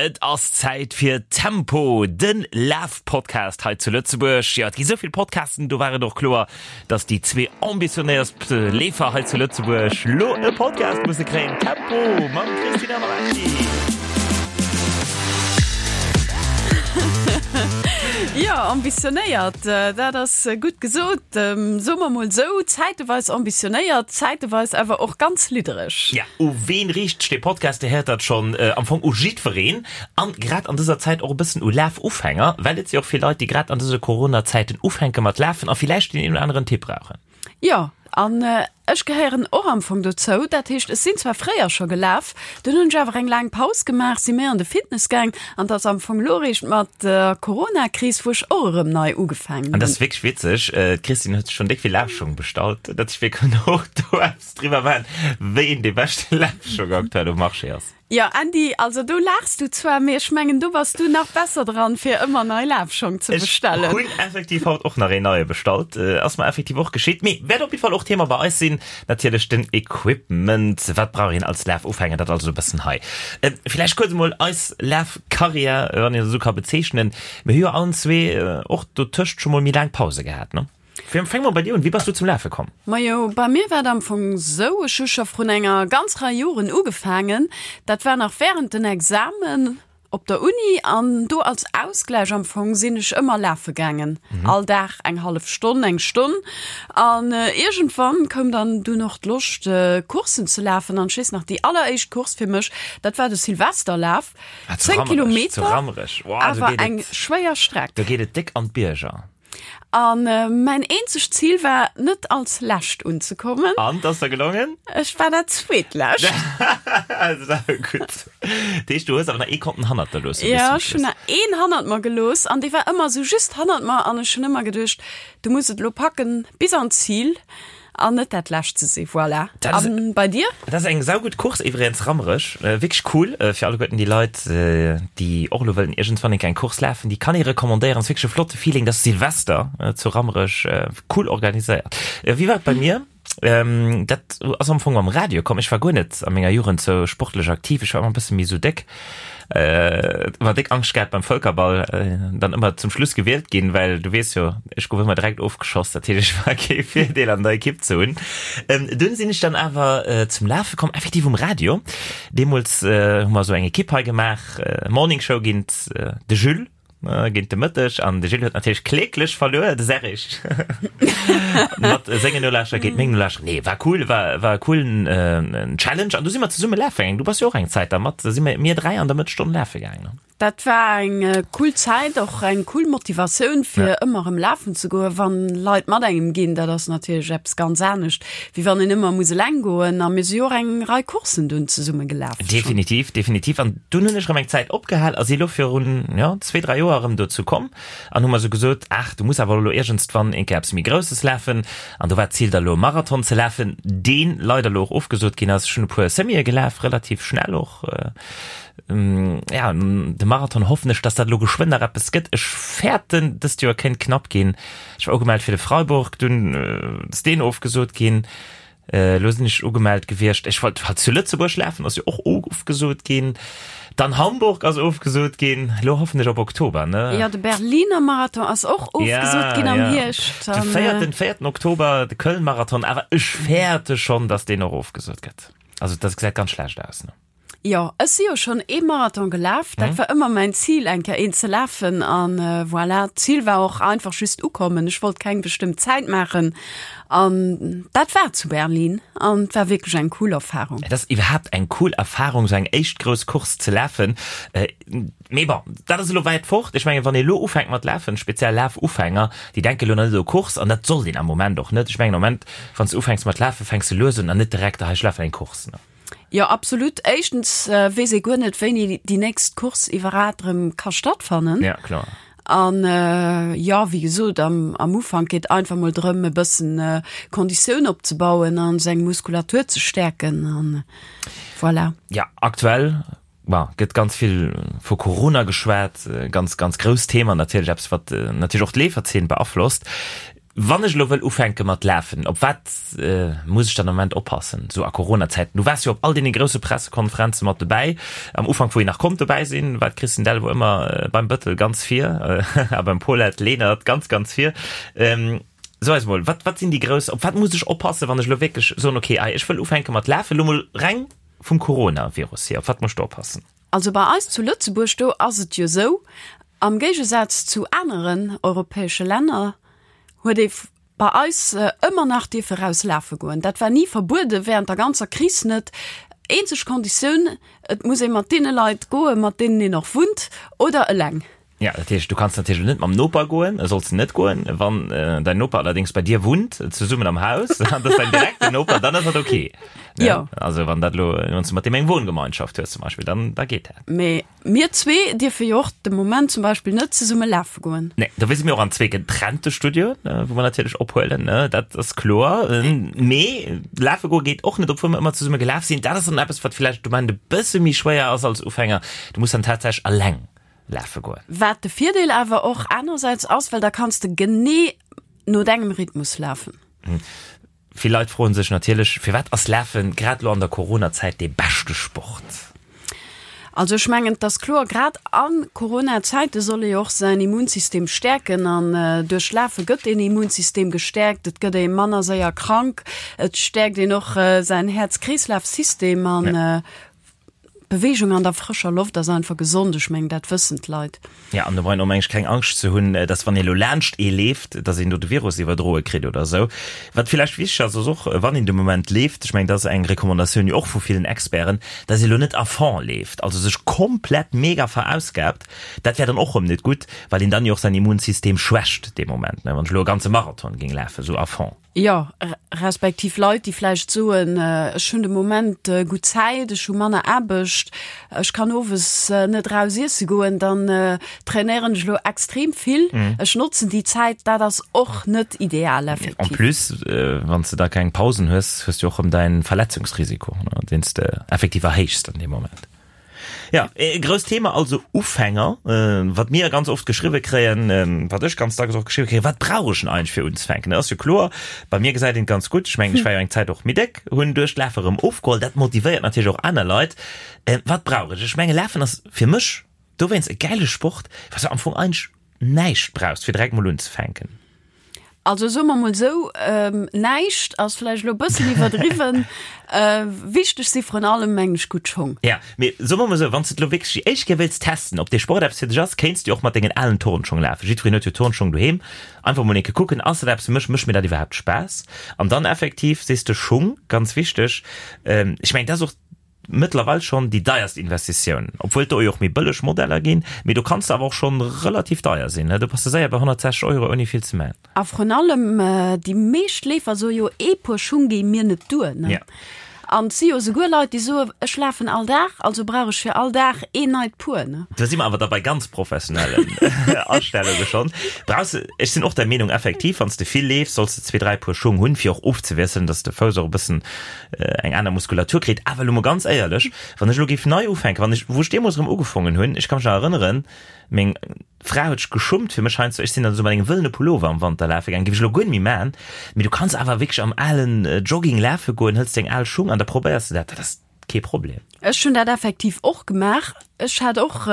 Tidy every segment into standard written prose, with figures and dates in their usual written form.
Et ass Zäit fir Tempo, de Laf-Podcast hei zu Lëtzebuerg. Jo, et gi sou vill Podcasten, do war et och kloer, dass déi zwee ambitionéierst Leefer hei zu Lëtzebuerg lo e Podcast musse kréien. Tempo mam Christina Marecki. Jo, ambitionéiert, dat ass gutt gesot. Soe mer mol sou, zäiteweis ambitionéiert, zäiteweis awer och ganz liddereg. Ja, u ween riicht sech dee Podcast? Dir héiert dat schonn, am Fong u jiddwereen an grad an dëser Zäit och e bëssen u Lafufänger, well et si och vill Leit, déi grad an dëse Corona-Zäiten ufänke mat lafen a villäicht deen een oder aneren Tipp brauchen. Jo, an ech gehéieren och am Fong dozou. Dat heescht, ech sinn zwar fréier scho gelaf, dunn hunn ech awer eng laang Paus gemaach, si méi an de Fitness gaang an et ass am Fong elo eréischt mat der Corona-Kris, wou ech och erëm nei ugefaangen An dat hunn. ass wierklech witzeg, d'Christine huet sech schonn déck vill Lafschong bestallt, dat ech wierklech och do eppes driwwer maachen, wéi een dee beschte Lafschong aktuell um Marché ass. Jo Andy, also do laachs du zwar, mee ech mengen do bass du nach besser dran fir ëmmer nei Lafschong ze bestellen. Ech hunn effektiv haut och nach een neie bestallt, ass mer effektiv och geschitt, mee wäert op jidde Fall och Thema bei eis sinn, natierlech den Equipment, wat brauch een als Lafufänger, dat also e bëssen hei. Villäicht kuerz emol eis Lafkarriär, wann een dat esou ka bezeechnen, mir hu jo allen zwee och dotëscht scho mol méi laang Pause gehat, ne? Fänke mer bei dir un, wéi bass du zum Lafe komm? Majo, bei mir war et am Fong sou, ech hu scho vrun enger ganz Rei Joren ugefaangen, dat war nach während den Examen op der Uni an do als Ausgläich am Fong sinn ech ëmmer lafe gaangen, all Dag eng hallef Stonn, eng Stonn an iergendwann koum dann dunn och d'Loscht Courssen ze lafen an ech weess nach déi alleréischt Course fir mech, dat war de Silvesterlaf, 10 Kilometer, awer eng schwéier Streck. Do geet et déck an d'Bierger. An mäin eenzegt Zil war, net als Lescht unzekommen. An, 't ass der gelongen? Ech war dat Zweetlescht. Saugutt. Dat heescht, du hues awer nach ee konnten hannert der loossen bis zum Schluss? Jo, ech hunn nach een hannert mer gelooss an dee war ëmmer esou just hannert mer an ech hunn ëmmer geduecht, du muss et elo packen bis an d'Zil. An net dat lescht ze si, voilà. An bei dir? Dat ass eng saugutt Course iwwregens, Rammerech. Wierklech cool fir alleguerten déi Leit, déi och elo wëllen iergendwann eng kleng Course lafen. Déi kann ee recommandéieren. Ass wierklech e flotte Feeling. Dat ass Silvester zu Rammerech. Cool organiséiert. Wéi war et bei mir? Dat ass am Fong mam Radio komm. Ech war guer net a menger Jugend sou sportlech aktiv. Ech war ëmmer e bësse méi sou déck. Ëmmer déck Angscht gehat beim Vëlkerball dann ëmmer zum Schluss gewielt ginn, well du weess jo, ech gouf ëmmer direkt ofgeschoss, dat heescht ech war kee Virdeel an der Ekipp ze hunn. Dunn sinn ech dann awer zum Lafe komm, effektiv um Radio. Deemools hu mer esou eng Ekipp hei gemaach, Morning Show géint de Jules. Géint de Mëtteg an de Gilles huet natierlech kläglech verluer, de Serrig mat sengen Nolauschterer géint meng Nolauschterer. Nee, war cool, war, war e coolen äh, Challenge an du si mer zesumme lafe gaangen. Du bass jo och eng Zäit da mat, da si mer mir 3 an der Mëttesstonn lafe gaangen, ne? Dat war eng cool Zäit, och eng cool Motivatioun fir ëmmer erëm lafen ze goen, wann Leit mat engem ginn. Dat ass natierlech eppes ganz anescht, wéi wann een ëmmer muss eleng goen. A mir si jo och eng Rei Courssen dunn zesumme gelaf schonn. Definitiv, definitiv. An dunn hunn ech erëm eng Zäit opgehal a si elo virun, jo, zwee, dräi Joer erëm dozou komm an hu mer esou gesot, Ach, du muss awer elo iergendswann eng Kéier eppes méi Grousses lafen. An do war d'Zil da elo e Marathon ze lafen, deen leider elo och ofgesot ginn ass. Ech hunn e puer Semië gelaf, relativ schnell och. Ja, de Marathon hoffen ech, dass dat elo geschwënn nach eppes gëtt. Ech fäerten, dëst Joer kéint knapp ginn. Ech war ugemellt fir de Freiburg, dunn ass deen ofgesot ginn. Elo sinn ech ugemellt gewiescht, ech wollt halt zu Lëtzebuerg lafen, ass jo och ofgesot ginn. Dann Hamburg ass ofgesot ginn. Elo hoffen ech op Oktober, ne? Jo, de Berliner Marathon ass och ofgesot ginn am Hierscht. De véierten, véierten Oktober de Köln-Marathon, awer ech fäerte schonn, datt deen och ofgesot gëtt. Also dat gesäit ganz schlecht aus, ne? Jo, ech si jo schonn ee Marathon gelaf. Dat war ëmmer mäin Zil, eng Kéier een ze lafen. An voilà, d'Zil war och einfach just ukommen. Ech wollt keng bestëmmt Zäit maachen. An dat war zu Berlin an et war wierklech eng cool Erfarung. Et ass iwwerhaapt eng cool Erfarung, esou eng éischt grouss Course ze lafen. Mee bon, dat ass elo wäit fort. Ech mengen, wann ee elo ufänkt mat lafen, speziell Lafufänger, déi denke elo nach net u Course an dat sollt een am Moment och net. Ech mengen, am Moment, wann s de ufänks mat lafen, fänks de lues un an net direkt, ah, ech lafen eng Course. Jo, absolut. Éischtens weess ee guer net, wéini déi nächst Course iwwerhat erëm ka stattfannen. Ja, kloer. An jo, wéi gesot, am, am Ufank geet einfach mol drëm, e bëssen Konditioun opzebauen a seng Muskulatur ze stäerken an voilà. Ja, aktuell, bon, gëtt ganz vill vu Corona geschwat, ganz, ganz grousst Thema natierlech, eppes wat natierlech och d'Leeferzeen beaflosst. Wann ech elo wëll ufänke mat lafen, op wat muss ech dann am Moment oppassen, esou a Corona-Zäiten? Du waars jo op all deene grousse Pressekonferenze mat dobäi. Am Ufank, wou een nach konnt dobäi sinn, war d'Christine Delvaux ëmmer beim Bëttel ganz vir a beim Paulette Lenert ganz, ganz vir. So eis mol, wat, wat sinn déi grouss, op wat muss ech oppassen, wann ech elo wierklech soen, okay, ech wëll ufänke mat lafen, elo mol reng vum Coronavirus hier, op wat muss ech do oppassen? Also bei eis zu Lëtzebuerg, do ass et jo esou, am Géigesaz zu aneren europäesche Länner huet ee bei eis ëmmer nach dierfe raus lafe goen. Dat war ni verbuede während der ganzer Kris net. Eenzeg Konditioun, et muss ee mat deene Leit goen, mat deenen een och wunnt oder eleng. Ja, dat heescht, du kanns natierlech net mam Noper goen, solls de net goen. Wann däin Noper allerdéngs bei dir wunnt, zesummen am Haus, an dat ass däin direkten Noper, dann ass dat ok. Ne? Jo. Also wann dat elo, wann s du mat deem eng Wohngemeinschaft hues zum Beispill, dann da geet dat. Mee mir zwee dierfe jo och de Moment zum Beispill net zesumme lafe goen. Nee, dofir si mir och an zwee getrennte Studioen, wou mer natierlech ophuelen, ne, dat ass kloer. Mee lafe goe geet och net, obwuel mer ëmmer zesumme gelaf sinn. Dat ass dann eppes, wat vläicht de Moment e bësse méi schwéier ass als Ufänger. Du muss dann tatsächlech eleng lafe goen. Wat de Virdeel awer och anersäits ass, well da kanns de genee no dengem Rhythmus lafen. Vill Leit froen sech natierlech, firwat ass Lafen grad elo an der Corona-Zäit dee beschte Sport? Also ech mengen, et ass kloer, grad a Corona-Zäite soll ee jo och säin Immunsystem stäerken an duerch Lafe gëtt deen Immunsystem gestäerkt, et gëtt ee manner séier krank, et stäerkt een och säin Häerz-Kreeslaf-System an Beweegung an der frëscher Loft ass einfach gesond, ech mengen dat wëssen d'Leit. Ja, an do brauch een och meng ech keng Angscht ze hunn, dass wann ee lo laanscht ee leeft, dass een do de Virus iwwerdroe kritt oder esou. Wat villäicht wichteg ass, ass och, wann een de Moment leeft, ech mengen dat ass eng Recommandatioun jo och vu villen Experten, dass ee lo net à fond leeft, also sech komplett mega verausgaabt, dat wär dann och rëm net gutt, well een dann jo och säin Immunsystem schwächt dee Moment, ne, wann ech elo e ganze Marathon géing lafen, esou à fond. Jo, respektiv Leit, déi vläicht soen, ech hunn de Moment gutt Zäit, ech hu manner Aarbecht, ech kann owes net eraus iesse goen, dann trainéieren ech elo extrem vill, ech notzen déi Zäit. Dat ass och net ideal effektiv. En plus, wann s de da keng Pausen hues, hues du och erëm däin Verletzungsrisiko, deen s de effektiv erhéichs an deem Moment. Ja, e grousst Thema also Ufänger, wat mir ganz oft geschriwwe kréien, wat ech ganz dacks och geschriwwe kréien, wat brauch ech denn eigentlech fir unzefänken? Dat ass jo kloer, bei mir gesäit een et ganz gutt, ech mengen, ech war jo eng Zäit och méi déck, hunn duerch d'Lafe erëm ofgeholl, dat motivéiert natierlech och aner Leit. Wat brauch ech? Ech menge Lafen ass fir mech dowéinst e gäile Sport, well s de am Fong eigentlech näischt brauchst, fir direkt mol unzefänken. Also soe mer mol esou, näischt ass vläicht elo e bëssen iwwerdriwwen. Wichteg si vrun allem, mengen ech, gutt Schong. Ja, mee soe mer mol esou, wann s de et elo wierklech déi éischt Kéier wéilts testen, ob dee Sport eppes fir dech ass, kéints de jo och mat dengen alen Turnschong lafen. Jiddwereen huet jo Turnschong doheem. Einfach mol eng Kéier kucken, ass dat eppes fir mech, mécht mir dat iwwerhaapt Spaass? An dann effektiv, sees de, Schung, ganz wichteg. Ech mengen, dat ass och Mëttlerweil schonn déi deierst Investitioun, obwuel et do jo och méi bëlleg Modeller ginn, mee do kanns de awer och schonn relativ deier sinn, do bass de séier bei 160 Euro ouni vill ze man. A vrun allem déi meescht Leefer soe jo, ee Puer Schung géing mir net duer, ne? An et si jo esouguer Leit, déi soe, ech lafen all Dag, also brauch ech fir all Dag een neit Puer, ne? Do si mer awer da bei ganz professionellen Astellunge schonn. Brauchs de, ech sinn och der Meenung effektiv, wann s de vill leefs, solls de zwee, dräi Puer Schung hunn, fir och ofzewiesselen, dass de Fouss och e bëssen eng aner Muskulatur kritt. Awer elo mol ganz éierlech, wann ech elo géif nei ufänken, wann ech, wou ech deemools erëm ugefongen hunn, ech ka mech nach erënneren, meng Fra huet sech geschummt fir mech heiansdo, ech sinn dann esou mat engem wëllene Pullover am Wanter lafe gaangen, géif ech elo guer net méi maachen, mee du kanns awer wierklech am alen Jogging lafe goen, hëls deng al Schung an da probéiers de dat, dat ass kee Problem. Ech hunn dat effektiv och gemaach. Ech hat och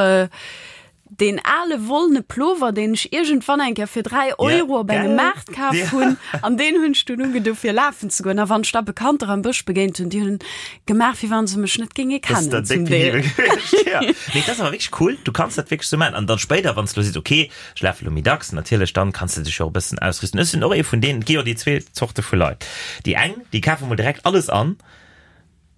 Deen ale wollene Plover, deen ech iergendwann eng Kéier fir 3 Euro op engem Maart kaf hunn, an deen hunn ech dunn ugedo fir lafen ze goen. A wann ech da Bekannter am Bësch begéint hunn, déi hunn gemaach, wéi wann se mech net géinge kennen zum Deel. Nee, dat ass awer wierklech cool, du kanns dat wierklech sou maachen. An dann spéider, wann s de elo sees, okay, ech lafe lo méi dacks, natierlech, dann kanns de dech jo och e bëssen ausrüsten. Ech sinn och ee vun deenen, et gi jo déi zwee Zorte vu Leit, déi eng, déi kafe mol direkt alles an,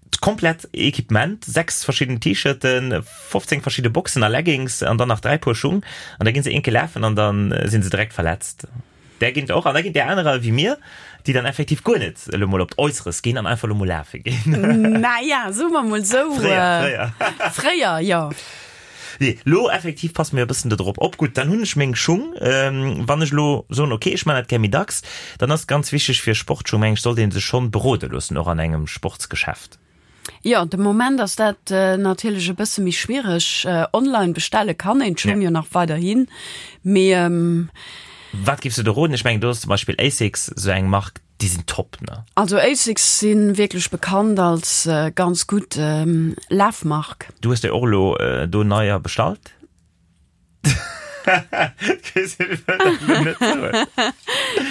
D'komplett Equipement, 6 verschidden T-Shirten, 15 verschidde Boxen a Leggings an dann nach 3 Puer Schung an da ginn se eenke lafen an dann sinn se direkt verletzt. Där ginn et och an da ginn där anerer ewéi mir, déi dann effektiv guer net elo mol op d'Äusseres ginn an einfach elo mol lafe ginn. Naja, soe mer mol esou. Fréier, fréier. Fréier, jo. Nee, lo effektiv passe mir e bëssen do drop op. Gutt, dann hunn ech meng Schung. Wann ech elo soen, okay, ech man dat gär méi dacks, dann ass ganz wichteg fir Sportschung, meng ech, sollt ee sech schonn berode loossen, och an engem Sportsgeschäft. Jo, de Moment ass dat natierlech e bësse méi schwiereg. Online bestelle kann een d'Schung jo nach weiderhin, mee. Wat giffs de do roden? Ech mengen do ass zum Beispill Asics sou eng Mark, déi sinn top, ne? Also Asics si wierklech bekannt als ganz gutt Lafmark. Du hues der och elo do neier bestallt?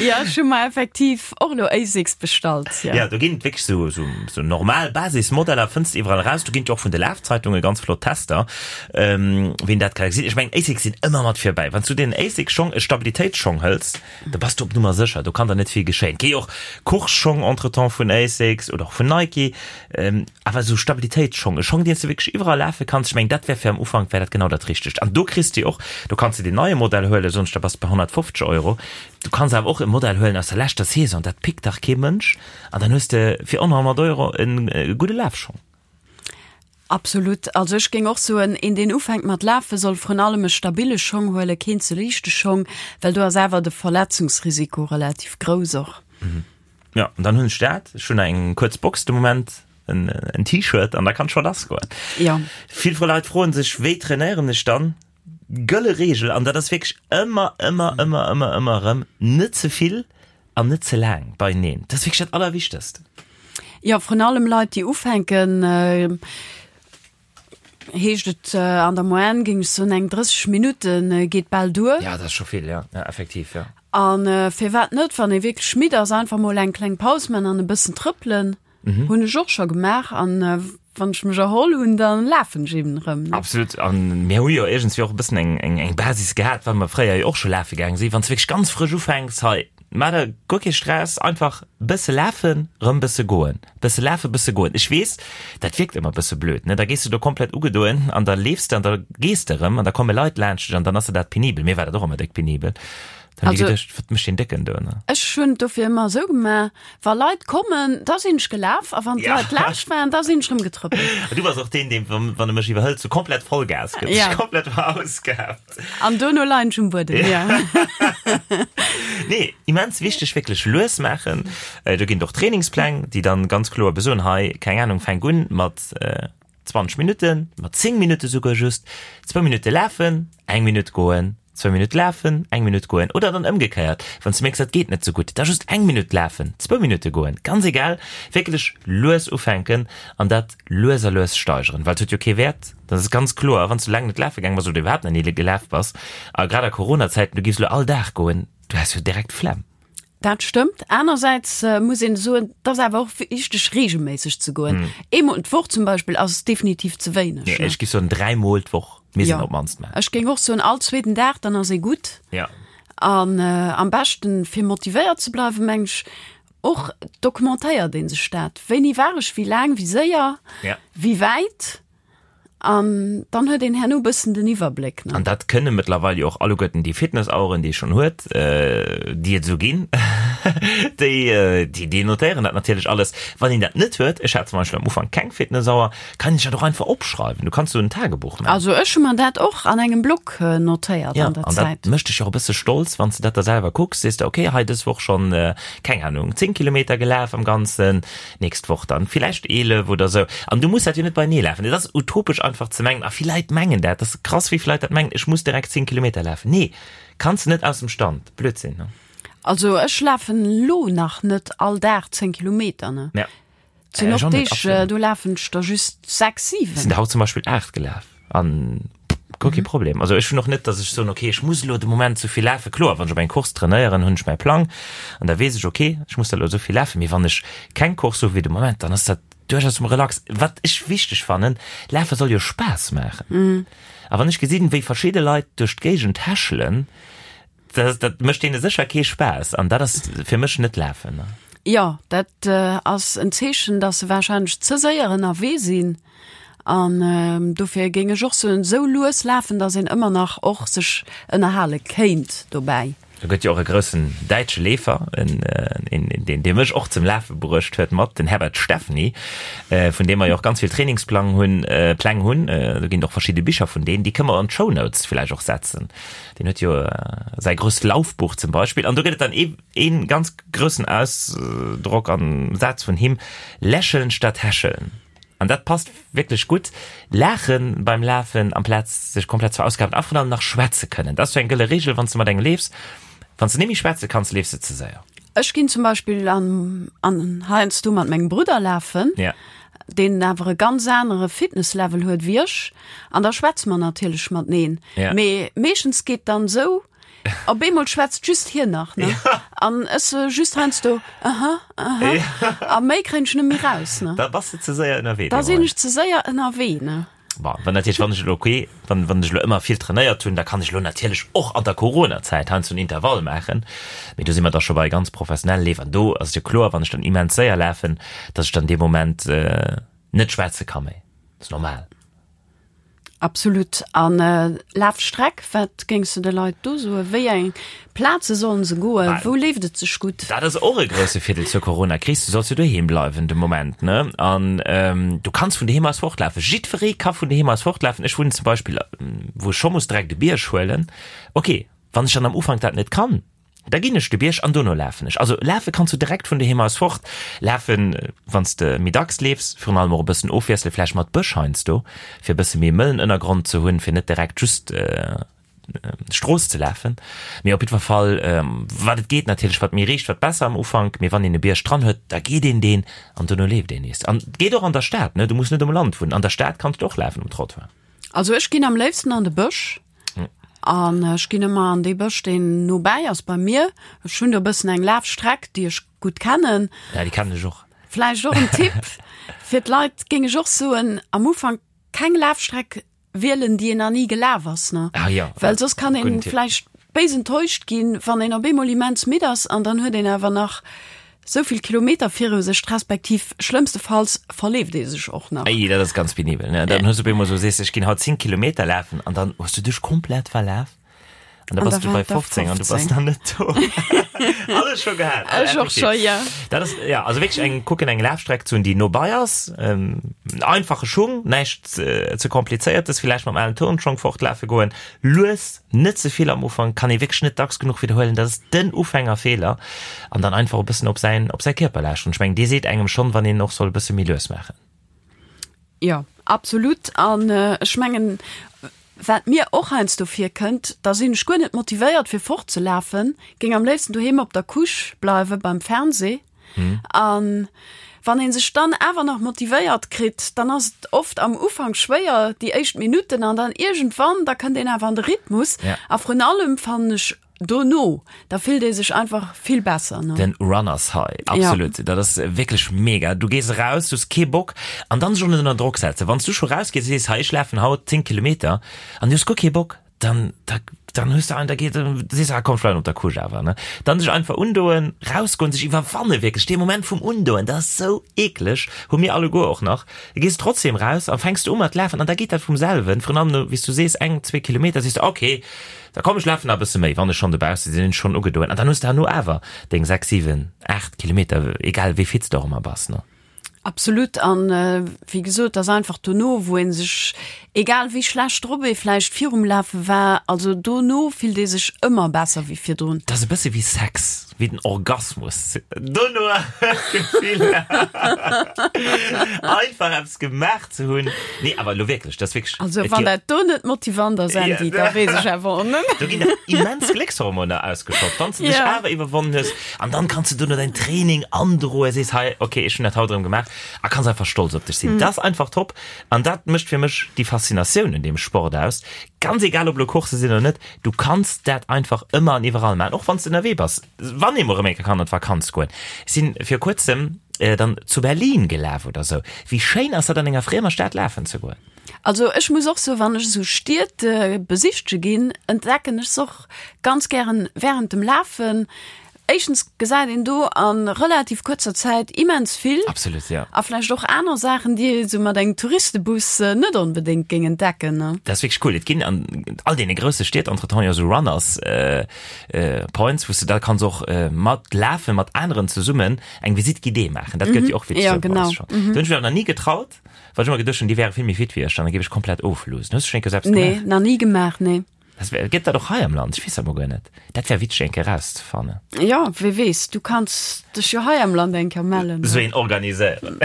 Jo, ech hu mer effektiv och elo Asics bestallt, jo. Jo, do ginn et wierklech sou, sou, sou normal Basismodeller fënns de iwwerall eraus. Do ginn et jo och vun de Lafzeitunge ganz flott Tester, ween dat ka gesinn. Ech mengen, Asics sinn ëmmer mat virbäi. Wann s du dir en Asics-Schong, e Stabilitéitsschong hëls, da bass du op Nummer sécher, do kann der net vill geschéien. Et gi jo och Course-Schong entretemps vun Asics oder och vun Nike. Awer esou Stabilitéitsschong, e Schong, deen s de wierklech iwwerall lafe kanns, ech mengen, dat wär fir am Ufank wär dat genau dat Richtegt. An do kriss de och, do kanns de deen neie Modell huelen, soen ech, da bass de bei 150 Euro. Du kanns awer och e Modell huelen aus der leschter Saison, dat pickt dach kee Mënsch, an dann hues de fir ënner 100 Euro e gudde Lafschong. Absolut. Also ech géing och soen, een deen ufänkt mat lafen, soll vrun allem e stabile Schong huelen, keen ze liichte Schong, well do ass awer de Verletzungsrisiko relativ grouss och. Ja, an dann hunn ech dat. Ech hunn eng kuerz Box de Moment, en, en T-Shirt an da kann scho lass goen. Ja. Vill vu Leit froen sech, wéi trainéieren ech dann? Gëlle Reegel, an dat ass wierklech ëmmer, ëmmer, ëmmer, ëmmer, ëmmer erëm, net ze vill an net ze laang beieneen. Dat ass wierklech dat Allerwichtegst. Jo, vrun allem Leit, déi ufänken, Heescht et an der Moyenne géing ech soen eng 30 Minutte geet bal duer. Ja, dat ass scho vill, ja, ja effektiv, ja. An firwat net, wann ee wierklech midd ass, einfach mol eng kleng Paus man an e bëssen trëppelen. Hunn ech och scho gemaach an wann ech mech erholl hunn, da lafen ech eben erëm. Absolut, an mir hu jo iergendswéi och e bëssen eng, eng, eng Basis gehat, well mer fréier jo och scho lafe gaange sinn. Wann s de wierklech ganz frësch ufänks, hei, Maach der guer kee Stress, einfach bësse lafen, rëm bësse goen, bësse lafen, bësse goen. Ech weess, dat wierkt ëmmer bësse blöd, ne? Da gees du do komplett ugedoen an da leefs de an da gees de rëm an da komme Leit laanscht dech an dann ass der dat penibel. Mir war dat och ëmmer déck penibel. Dann hunn ech geduecht, wat mécht deen Décken do, ne? Ech hunn et dofir ëmmer esou gemaach, wa Leit kommen, da sinn ech gelaf a wann d'Leit laanscht waren, da sinn ech rëm getrëppelt. Du bass och deen, deen, wann e mech iwwerhëlt, sou komplett Vollgas gëtt, sech komplett verausgaabt. An dono leien ech um Buedem, ja. Nee, immens wichteg, wierklech lues maachen. Do ginn et och Trainingspläng, déi dann ganz kloer besoen, hei, keng Ahnung, fänk un mat 20 Minutten, mat 10 Minutte souguer just, zwou Minutte lafen, eng Minutt goen, zwou Minutte lafen, eng Minutt goen. Oder dann ëmgekéiert, wann s du mierks, dat geet net sou gutt, da just eng Minutt lafen, zwou Minutte goen, ganz egal, wierklech lues ufänken an dat lues a lues steigeren, well et huet jo kee Wäert, dat ass ganz kloer, wann s du laang net lafe gaang bass oder iwwerhaapt nach ni gelaf bass, a grad a Corona-Zäiten, du giffs elo all Dag goen, du häss jo direkt d'Flemm. Dat stëmmt. Anersäits muss een soen, et ass awer och wichteg reegelméisseg ze goen. Eemol d'Woch zum Beispill ass definitiv ze wéineg. Nee, ech giff soen dräimol d'Woch misst een op d'mannst maachen. Ech géing och soen all zweeten Dag, dann ass ee gutt. Ja. An am beschten, fir motivéiert ze bleiwen, meng ech, Och dokumentéiert ee sech dat, wéini war ech, wéi laang, wéi séier, wéi wäit, an dann huet een herno e bëssen den Iwwerbléck. An dat kënne mëttlerweil jo och alleguerten déi Fitnessaueren, déi ee schonn huet, déi et esou ginn, déi, déi notéieren dat natierlech alles. Wann een dat net huet, ech hat zum Beispill am Ufank keng Fitnessauer, kann een sech dat och einfach opschreiwen. Du kanns sou en Tagebuch maachen. Also ech hu mer dat och an engem Block notéiert an der Zäit. Ja, an dat mécht dech jo och e bësse stolz, wann s de dat da selwer kucks, sees de, okay, hei dës Woch schonn, keng Ahnung, 10 Kilometer gelaf am Ganzen, nächst Woch dann villäicht 11 oder sou. An du muss dat jo net beienee lafen. Et ass utopesch einfach ze mengen, a vill Leit mengen dat, dat ass krass, wéi vill Leit dat mengen, ech muss direkt 10 Kilometer lafen. Nee, kanns de net aus dem Stand. Blödsinn, ne? Also ech lafen lo nach net all Dag 10 Kilometer, ne? Ja. Et sinn och Deeg, do lafen ech der just 6, 7. Sinn der haut zum Beispill 8 gelaf an guer kee Problem. Also ech hunn och net, datt ech soen, okay, ech muss elo de Moment esou vill lafen. Kloer, wann ech op eng Course trainéieren, hunn ech mäi Plang an da weess ech, okay, ech muss da elo esou vill lafen. Mee wann ech keng Course hu wéi de Moment, dann ass dat duerchaus méi relax. Wat ech wichteg fannen, Lafe soll jo Spaass maachen. A wann ech gesinn, wéi verschidde Leit duerch d'Géigend häschelen, Dat, dat mécht deene sécher kee Spaass an dat ass fir mech net lafen. Jo, dat ass en Zeechen, dass se warscheinlech ze séier ënnerwee sinn. An dofir géing ech och soen, esou lues lafen, dass een ëmmer nach och sech ënnerhale kéint dobäi. Do gëtt jo och e groussen däitsche Leefer, en, en, deen, dee mech och zum Lafe bruecht huet mat, den Herbert Steffny, vun deem mer jo och ganz vill Trainingsplang hunn, Pläng hunn. Do ginn et och verschidde Bicher vun deen, déi kënne mer an d'Shownotes villäicht och setzen. Deen huet jo säi grousst Laufbuch zum Beispill. An do gëtt et dann ee, ee ganz groussen Ausdrock an Saz vun him, Lächeln statt häscheln. An dat passt wierklech gutt. Laache beim Lafen amplaz sech komplett ze verausgaben a vrun allem nach schwätze kënnen. Dat ass sou eng gëlle Reegel, wann s de mat engem leefs. Wann s de net méi schwätze kanns, leefs de ze séier. Ech ginn zum Beispill an, an heiansdo mat mengem Brudder lafen, Ja. deen awer e ganz anere Fitnesslevel huet wéi ech, an da schwätze mer natierlech mateneen. Ja. Mee meeschtens geet dann esou, op eemol schwätzt just hien nach, ne? An ech sou just heiansdo, aha, aha, a méi kréien ech net méi raus, ne? Da bass de ze séier ënnerwee. Da sinn ech ze séier ënnerwee, ne? Bon, wann natierlech, wann ech elo, okay, wann, wann ech elo ëmmer vill trainéiert hunn, da kann ech elo natierlech och an der Coronazäit heiansdo en Intervall maachen. Mee do si mer da scho bei ganz professionelle Leef an do ass et jo kloer, wann ech dann immens séier lafen, datt ech dann dee Moment net schwätze ka méi. Dat ass normal. Absolut. An Lafstreck, wat géings de de Leit do soen? Wéi eng Plaze sollen se goen? Wou leeft et sech gutt? Dat ass och e grousse Virdeel zur Coronakris, du solls jo doheem bleiwen de Moment, ne? An du kanns vun doheem aus fortlafen. Jiddweree ka vun doheem aus fortlafen. Ech wunnen zum Beispill, wou ech scho muss direkt e Bierg huelen. Ok, wann ech dann am Ufank dat net kann, da ginn ech de Bierg an dono lafen ech. Also lafe kanns du direkt vun doheem aus fort lafen, wann s de méi dacks leefs, virun allem och e bëssen ofwiessele vläicht mat Bësch heiansdo, fir e bësse méi mëllen Ënnergrond ze hunn, fir net direkt just Strooss ze lafen. Mee op jiddwer Fall, wat et geet natierlech, wat méi riicht, wat besser am Ufank. Mee wann een e Bierg dran huet, da geet een deen an dono leeft een nees. An et geet och an der Stad, ne? Du muss net um Land wunnen. An der Stad kanns du och lafen um Trottoir. Also ech ginn am léifsten an de Bësch. An ech ginn ëmmer an dee Bësch, deen nobäi ass bei mir. Ech hunn do e bëssen eng Lafstreck, déi ech gutt kennen. Ja, déi kennen ech och. Vläicht och en Tipp fir d'Leit, géing ech och soen, am Ufank keng Lafstreck wielen, déi een nach ni gelaf ass, ne? Ah ja. Well soss kann een vläicht béis enttäuscht ginn, wann een op eemol immens midd ass an dann huet een awer nach sou vill Kilometer viru sech, respektiv schlëmmstefalls verleeft ee sech och nach. Ei, dat ass ganz penibel, ne? Dann hues du op eemol sou, sees, ech ginn haut 10 Kilometer lafen an dann hues du dech komplett verlaf an da bass du bei 15 an du bass nach net do. Alles scho gehat. Ech och scho, jo. Dat ass, ja, also wierklech eng, kucken eng Lafstreck ze hunn, déi nobei ass, einfache Schung, näischt ze komplizéiertes, villäicht mam alen Turnschong fortlafe goen, lues, net ze vill am Ufank, kann ee wierklech net dacks genuch widderhuelen, dat ass den Ufängerfeeler, an dann einfach e bëssen op säin, op säi Kierper lauschteren. Ech mengen, dee seet engem schonn, wann een och soll e bësse méi lues maachen. Jo, absolut. An ech mengen, wat mir och heiansdo virkënnt, da sinn ech guer net motivéiert fir fortzelafen, géing am léifsten doheem op der Couche bleiwe beim Fernseh. An wann ee sech dann awer nach motivéiert kritt, dann ass et oft am Ufank schwéier, déi éischt Minutten, an dann iergendwann, da kënnt een awer an de Rhythmus. A vrun allem fannen ech dono, da fillt ee sech einfach vill besser. Ne? Den Runners High, absolut. Dat ass wierklech mega. Du gees eraus, du hues kee Bock an dann sech och net ënner Drock setzen. Wann s du scho rausgees a sees, hei ech lafen haut 10 Kilometer an du hues guer kee Bock, dann da, dann hues du ein, da geht, sees du, ah komm, ech bleiwen op der Couche awer, ne. Dann sech einfach undoen, rausgoen, sech iwwerwanne wierklech, dee Moment vum Undoen, dat ass sou eekleg, hu mir alleguer och nach. Da gees du trotzdem raus an fänks du u mat lafen an da geet dat vum selwen, virun allem no, wéi s du sees, eng, zwee Kilometer, sees du, okay, da komm ech lafen nach e bësse méi, wann ech schonn dobausse sinn, hunn ech schonn ugedoen an dann hues de herno awer deng 6, 7, 8 Kilometer, egal wéi fit s de och ëmmer bass, ne. Absolut an wéi gesot, ass einfach dono wou een sech, egal wéi schlecht drop ee vläicht virum Lafe war, also dono fillt ee sech ëmmer besser wéi virdrun. Dat ass e bësse wéi Sex, wéi den Orgasmus dono Gefill einfach eppes gemaach ze hunn. Nee awer elo wierklech, dat ass wierklech. Also wann dat do net motivant ass Andy, da weess ech awer och net. Do ginn dach immens Gléckshormoner ausgeschott, wann s de dech awer iwwerwonnen hues. An dann kanns du dono däin Training androen, sees hei, okay, ech hunn dat haut erëm gemaach a kanns einfach stolz op dech sinn. Dat ass einfach top an dat mécht fir mech déi Faszinatioun un deem Sport aus. Ganz egal, ob elo Coursse sinn oder net, du kanns dat einfach ëmmer an iwwerall maachen, och wann s de ënnerwee bass. Wann ee mol erëm eng Kéier kann an d'Vakanz goen. Ech sinn vir kuerzem dann zu Berlin gelaf oder sou. Wéi schéin ass dat an enger friemer Stad lafen ze goen? Also ech muss och soen, wann ech esou Stied besichtege ginn, entdecken ech se och ganz gären während dem Lafen. Éischtens gesäit een do a relativ kuerzer Zäit immens vill. Absolut, jo. A vläicht och aner Saachen, déi ee sou mat engem Touristebus net onbedéngt géing entdecken, ne? Dat ass wierklech cool. Et ginn an all deene grousse Stied entretemps jo esou Runners Points, wou s de da kanns och mat lafen, mat aneren zesummen eng Visite guidée maachen. Dat gëtt jo och wierklech Jo, genau. Do hunn ech mech awer nach ni getraut. Well ech ëmmer geduecht hunn, déi wäre vill méi fit wéi ech, dann géif ech komplett ofloosen. Hues du schonn eng Kéier selbst gemaach? Nee, nach ni gemaach, nee. Das wär, gëtt dat och hei am Land? Ech weess dat mol guer net. Dat wär witzeg eng Kéier rauszefannen. Jo, wee weess, du kanns dech jo hei am Land eng Kéier mellen. Sou een organiséieren.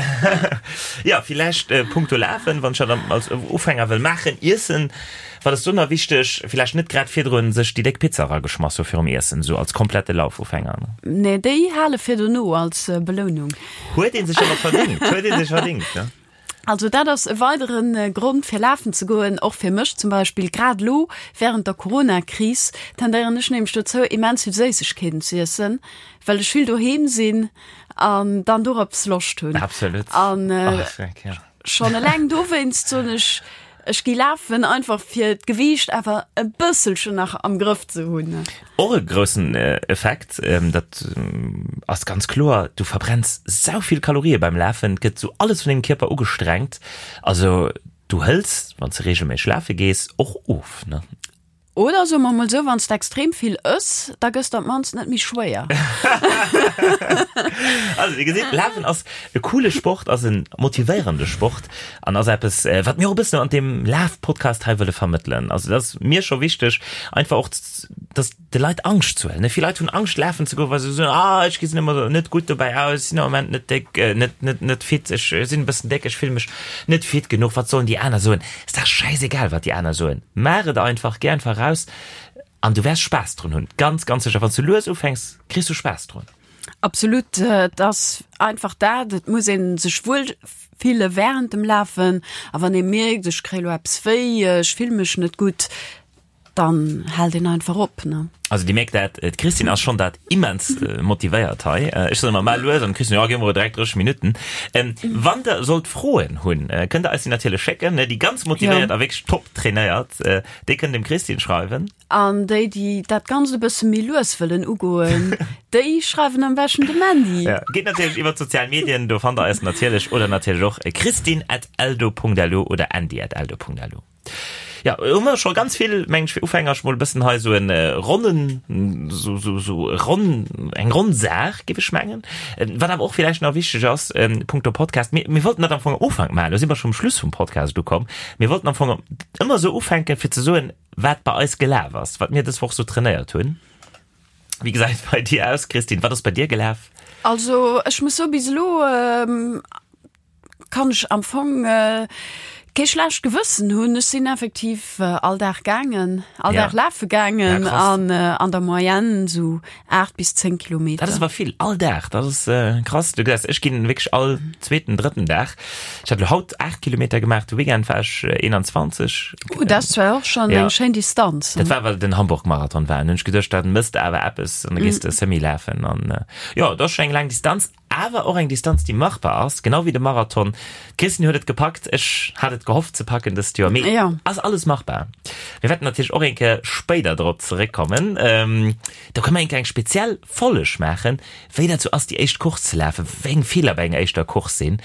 Jo, villäicht punkto Lafen, wann ech dat als Ufänger wëll maachen. Iessen, Wat ass do nach wichteg? Villäicht net grad virdrun sech déi déck Pizza erageschmass hu virum Iessen, esou als komplette Laufufänger, ne? Nee, déi hale fir dono als Belounung. Huet ee sech awer verdingt, huet ee sech verdingt, ne? Also dat ass e weidere Grond fir lafen ze goen, och fir mech zum Beispill. Grad elo während der Corona-Kris tendéieren ech nämlech dozou immens vill Séissegkeeten ze iessen, well ech vill doheem sinn an dann dorops Loscht hunn. Absolut. An schonn eleng dowéinst soen ech, ech gi lafen, einfach fir d'Gewiicht awer e bësselchen nach am Grëff ze hunn. Och e groussen Effekt, dat ass ganz kloer, du verbrenns sau vill Kalorië beim Lafen, et gëtt sou alles vun dengem Kierper ugestrengt. Also du hëls, wann s de reegelméisseg lafe gees, och of, ne? Oder soe mer mol sou, wann s de extrem vill ëss, da gëss de op d'mannst net méi schwéier. Also dir gesitt, Lafen ass e coole Sport, ass e motivéierende Sport an ass eppes, wat mir och e bëssen an deem Laf-Podcast hei wëlle vermëttelen. Also dat ass mir scho wichteg, einfach och, dass de Leit Angscht ze huelen. Ne, vill Leit hunn Angscht lafen ze goen, well se soen, ah ech gesinn ëmmer net gutt dobäi aus, sinn am Moment net déck, net, net, net fit, ech sinn e bëssen déck, ech fille mech net fit genuch, wat sollen déi aner soen? Ass dach schäisegal wat déi aner soen. Maach et einfach, géi einfach raus an du wäers Spaass drun hunn. Ganz, ganz sécher, wann s du lues ufänks, kriss du Spaass drun. Absolut, et ass einfach dat, et muss ee sech wuel fille wärend dem Lafen a wann ee mierkt, ech kréie lo eppes wéi, ech fille mech net gutt, dann hält een einfach op, ne. Also dir mierkt dat, d'Christine ass schonn dat immens motivéiert hei. Ech soen ëmmer, maach lues an d'Christine, jo, gi mer direkt 30 Minutten. Wann der sollt Froen hunn, kënnt der eis déi natierlech schécken. Déi ganz motivéiert a wierklech top trainéiert, déi kënnen dem Christine schreiwen. An déi, déi dat Ganzt e bësse méi lues wëllen ugoen, déi schreiwen am beschten dem Mandy. Ja, geet natierlech iwwer d'sozial Medien, do fannt der eis natierlech oder natierlech och christine at eldo.lu oder andy at eldo.lu. Ja, hu mer scho ganz vill, meng ech, fir Ufänger mol e bëssen hei sou en ronnen, sou, sou, sou ronn, eng ronn Saach, géif ech mengen. Wat awer och villäicht nach wichteg ass, punkto Podcast, mir, mir wollten dat am Fong am Ufank maachen, elo si mer scho um Schluss vum Podcast ukomm, mir wollten am Fong ëmmer sou ufänken, fir ze soen, wat bei eis gelaf ass, wat mir dës Woch sou trainéiert hunn. Wéi gesäit et bei dir aus, Christine? Wat ass bei dir gelaf? Also, ech muss soen, bis elo kann ech am Fong kee schlecht Gewëssen hunn. Ech sinn effektiv all Dag gaangen, all Dag lafe gaangen an an der Moyenne esou 8 bis 10 Kilometer. Dat ass awer vill, all Dag, dat ass krass. Du gesäis, ech ginn wierklech all zweeten, drëtten Dag. Ech hat elo haut 8 Kilometer gemaach, de Weekend war ech 21. Uh, dat ass zwar och schonn eng schéin Distanz. Dat war, well den Hamburg-Marathon war. An hunn ech geduecht, dat mëss de awer eppes an da gees de Semi lafen. An jo, dat ass schonn eng laang Distanz. Awer och eng Distanz, déi machbar ass, genau wéi de Marathon. D'Christine huet et gepackt, ech hat et gehofft ze packen dëst Joer, mee Jo. ass alles machbar. Mir wäerten natierlech och eng Kéier spéider drop zeréckkommen. Do kënne mer eng Kéier eng speziell Folleg maachen, wéi dat sou ass, déi éischt Course ze lafen, wéi eng Feeler bei enger éischter Course sinn,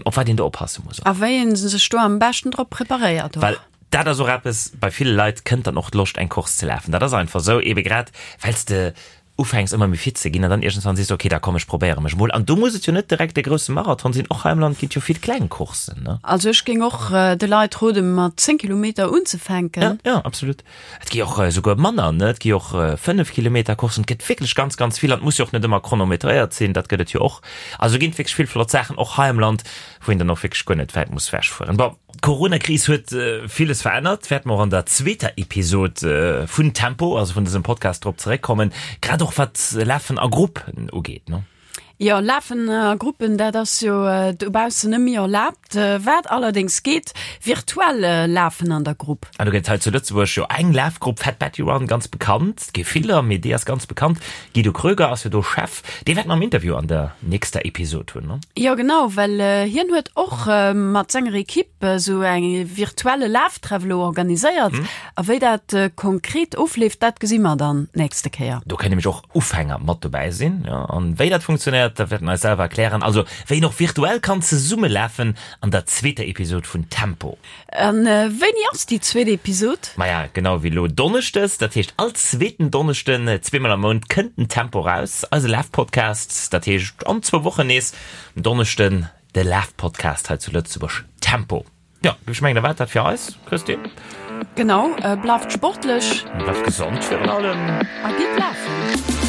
op wat een do oppasse muss. A wéi ee sech do am beschten drop preparéiert och. Well dat ass och eppes, bei ville Leit kënnt dann och d'Loscht eng Course ze lafen. Dat ass einfach sou, ebe grad well s de ufänks ëmmer méi fit ze ginn an dann iergendwann sees du, okay, da komm ech probéiere mech mol. An do muss et jo net direkt de grousse Marathon sinn, och hei am Land ginn et jo vill kleng Courssen, ne? Also ech géing och de Leit roden, mat 10 Kilometer unzefänken. Ja, ja, absolut. Et gi och esouguer manner, ne? Et gi och 5 Kilometer Courssen. Et gëtt wierklech ganz, ganz vill an et muss jo och net ëmmer chronometréiert sinn, dat gëtt et jo och. Also ginn et wierklech vill flott Saachen och hei am Land, wou een dann och wierklech guer net wäit muss wechfueren. Bon. D'Corona-Kris huet villes verännert, wäerte mer och an der zweeter Episod vun Tempo, also vun dësem Podcast, drop zeréckkommen, grad och wat Lafen a Gruppen ugeet, ne? Jo, Lafen a Gruppen, dat ass jo dobaussen net méi erlaabt. Wat allerdéngs geet, virtuell Lafen an der Grupp. An do gëtt et hei zu Lëtzebuerg jo eng Lafgrupp, Fat Betty Run, ganz bekannt. Et gi viller, mee déi ass ganz bekannt. Guido Kröger ass jo do Chef. Dee wäerte mer am Interview an der nächster Episod hunn, ne? Jo genau, well hien huet och mat senger Ekipp esou e virtuelle Laftreff elo organiséiert. A wéi dat konkret ofleeft, dat gesi mer dann d'nächste Kéier. Do kënnen nämlech och Ufänger mat dobäi sinn. Jo, an wéi dat funktionéiert, dat wäert en eis selwer erklären. Also wéi een och virtuell kann zesummelafen an der zweeter Episod vun Tempo. A wéini ass déi zweet Episod? Maja, genau wéi elo Donneschdes, dat heescht all zweeten Donneschden, zweemol am Mount kënnt den Tempo raus, eise Lafpodcast. Dat heescht an zwou Wochen nees um Donneschden de Lafpodcast hei zu Lëtzebuerg, Tempo. Jo, ech mengen, da war et dat fir eis, Christine. Genau, bleift sportlech. Bleift gesond virun allem. A gitt lafen.